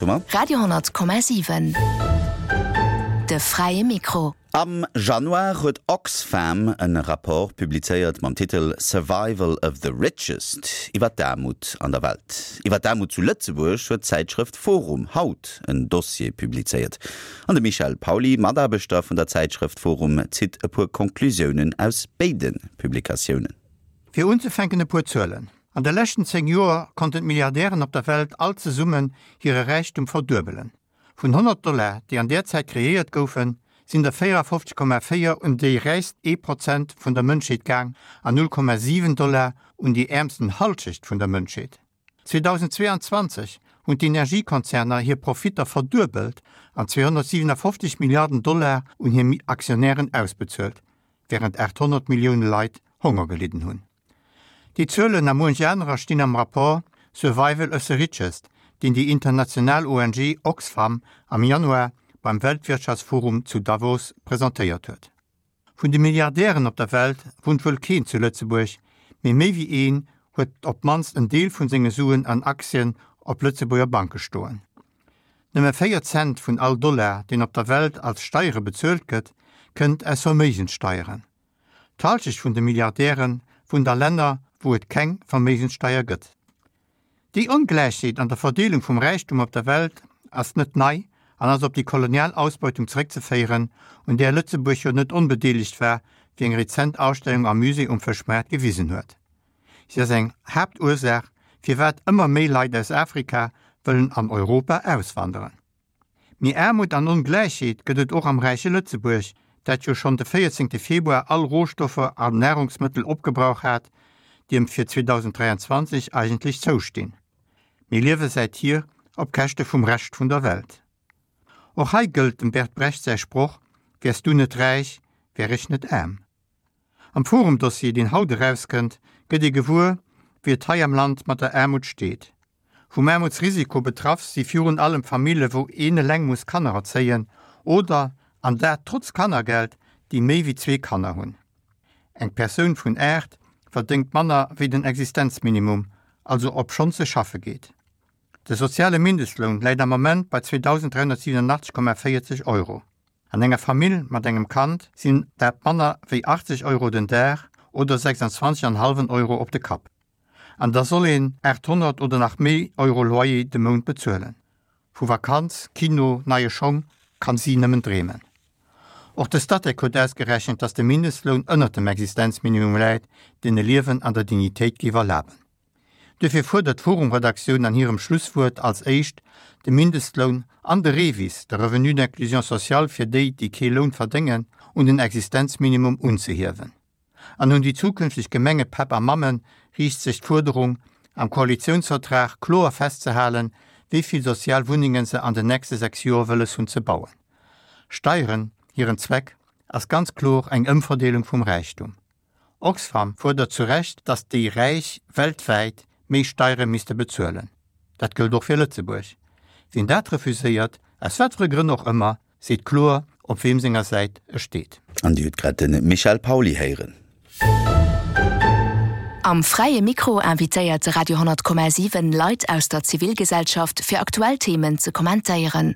mer. Radio 10,7 De fräie Mikro. Am Januar huet Oxfam en Rapport publizéiert mam Titel Survival of the Richest iwwer d'Aarmut an der Welt. Iwwer d'Aarmut zu Lëtzebuerg huet d'Zäitschrëft Forum haut en Dossier publizéiert. An de Michel Pauly, Mataarbechter vun der Zäitschrëft Forum, zitt e puer Conclusiounen aus béide Publikatiounen. Fir unzefänken e puer Zuelen, An de leschten 10 Joer konnten d'Milliardären op der Welt all zesummen hire Räichtum verduebelen. Vun 100 Dollar, déi an där Zäit kreéiert goufen, sinn der 54,4 un déi räichst ee Prozent vun der Mënschheet gaang an 0,7 Dollar un déi äermsten Hallschecht vun der Mënschheet. 2022 hunn d'Energiekonzerner hir Profitter verduebelt an 257 Milliarden Dollar un hir Aktionären ausbezuelt, wärend 800 Millioune Leit Honger gelidden hunn. Déi Zuelen a muench anerer stinn am Rapport Survival of the Richest, deen déi international ONG Oxfam am Januar beim Weltwirtschaftsforum zu Davos presentéiert huet. Vun de Milliardären op der Welt wunnt wuel keen zu Lëtzebuerg, mee méi wéi een huet op d'mannst en Deel vun senge Suen an Aktien op Lëtzebuerger Banke stoen. Nëmme 4 Cent vun all Dollar, deen op der Welt als Steiere bezuelt gëtt, kënnt aus Verméigenssteieren. D'Halschecht vun de Milliardäre wunnt a Länner, wou et keng Verméigenssteier gëtt. Déi Ongläichheet an der Verdeelung vum Räichtum op der Welt ass net nei an ass op déi kolonial Ausbeutung zeréckzeféieren, un där Lëtzebuerg jo net onbedeelegt war, wéi eng rezent Ausstellung am Musée um Fëschmaart gewisen huet. Si ass eng Haaptursaach, firwat ëmmer méi Leit aus Afrika wëllen an Europa auswanderen. Mee Aarmut an Ongläichheet gëtt et och am räiche Lëtzebuerg, dat jo schonn de 14 Februar all Rohstoffer an Nahrungsmëttel opgebrauch hat, déi em fir 2023 eigentlech zoustinn. Mir liewe säithier op Käschte vum Rescht vun der Welt. Och hei gëllt dem Bert Brecht säi Sproch, Wäers du net räich, wär ech net aarm. Am Forum-Dossier, deen haut erauskënnt, gëtt ee gewuer, wéi et hei am Land mat der Aarmut steet. Vum Aarmutsrisiko betraff si virun allem Famille wou een eleng muss Kanner erzéien oder, an dat trotz Kannergeld, déi méi wéi zwee Kanner hunn. Eng Persoun vun 8 verdéngt manner wéi den Existenzminimum, also obschonns se schaffe geet. De soziale Mindestloun läit am Moment bei 2.387,40 Euro. An enger Famill mat engem Kand sinn dat manner wéi 80 Euro den Dag oder 26,5 Euro op de Kapp. An da soll een 800 oder nach méi Euro Loyer de Mount bezuelen. Vu Vakanz, Kino, neie Schong kann si nëmmen dreemen. Och de Statec huet ausgerechent, dass de Mindestloun ënnert dem Existenzminimum läit, deen e Liewen an der Dignitéit géif erlaben. Duerfir fuerdert d'forum-Redaktioun an hirem Schlusswuert als éischt, de Mindestloun an de REVIS, de Revenu d'inclusion sociale fir déi, déi kee Loun verdéngen, un den Existenzminimum unzehiewen. An un déi zukünfteg Gemengepäpp a Mammen riicht sech d'Fuerderung, am Koalitiounsvertrag kloer festzehalen, wéi vill sozial Wunnenge se an den nächste 6 Joer wëlles hunn ze bauen. Steieren, hiren Zweck ass ganz kloer eng Ëmverdeelung vum Räichtum. Oxfam fuerdert zu Recht, datt déi Räich weltwäit méi Steiere misste bezuelen. Dat gëllt och fir Lëtzebuerg. Wien dat refuséiert, aus wat fir e Grënn och ëmmer, seet kloer, op weem senger Säit e steet. An Dir hutt grad de Michel Pauly héieren. Am Fräie Mikro invitéiert de Radio 10,7 Leit aus der Zivilgesellschaft fir aktuell Themen ze kommentéieren.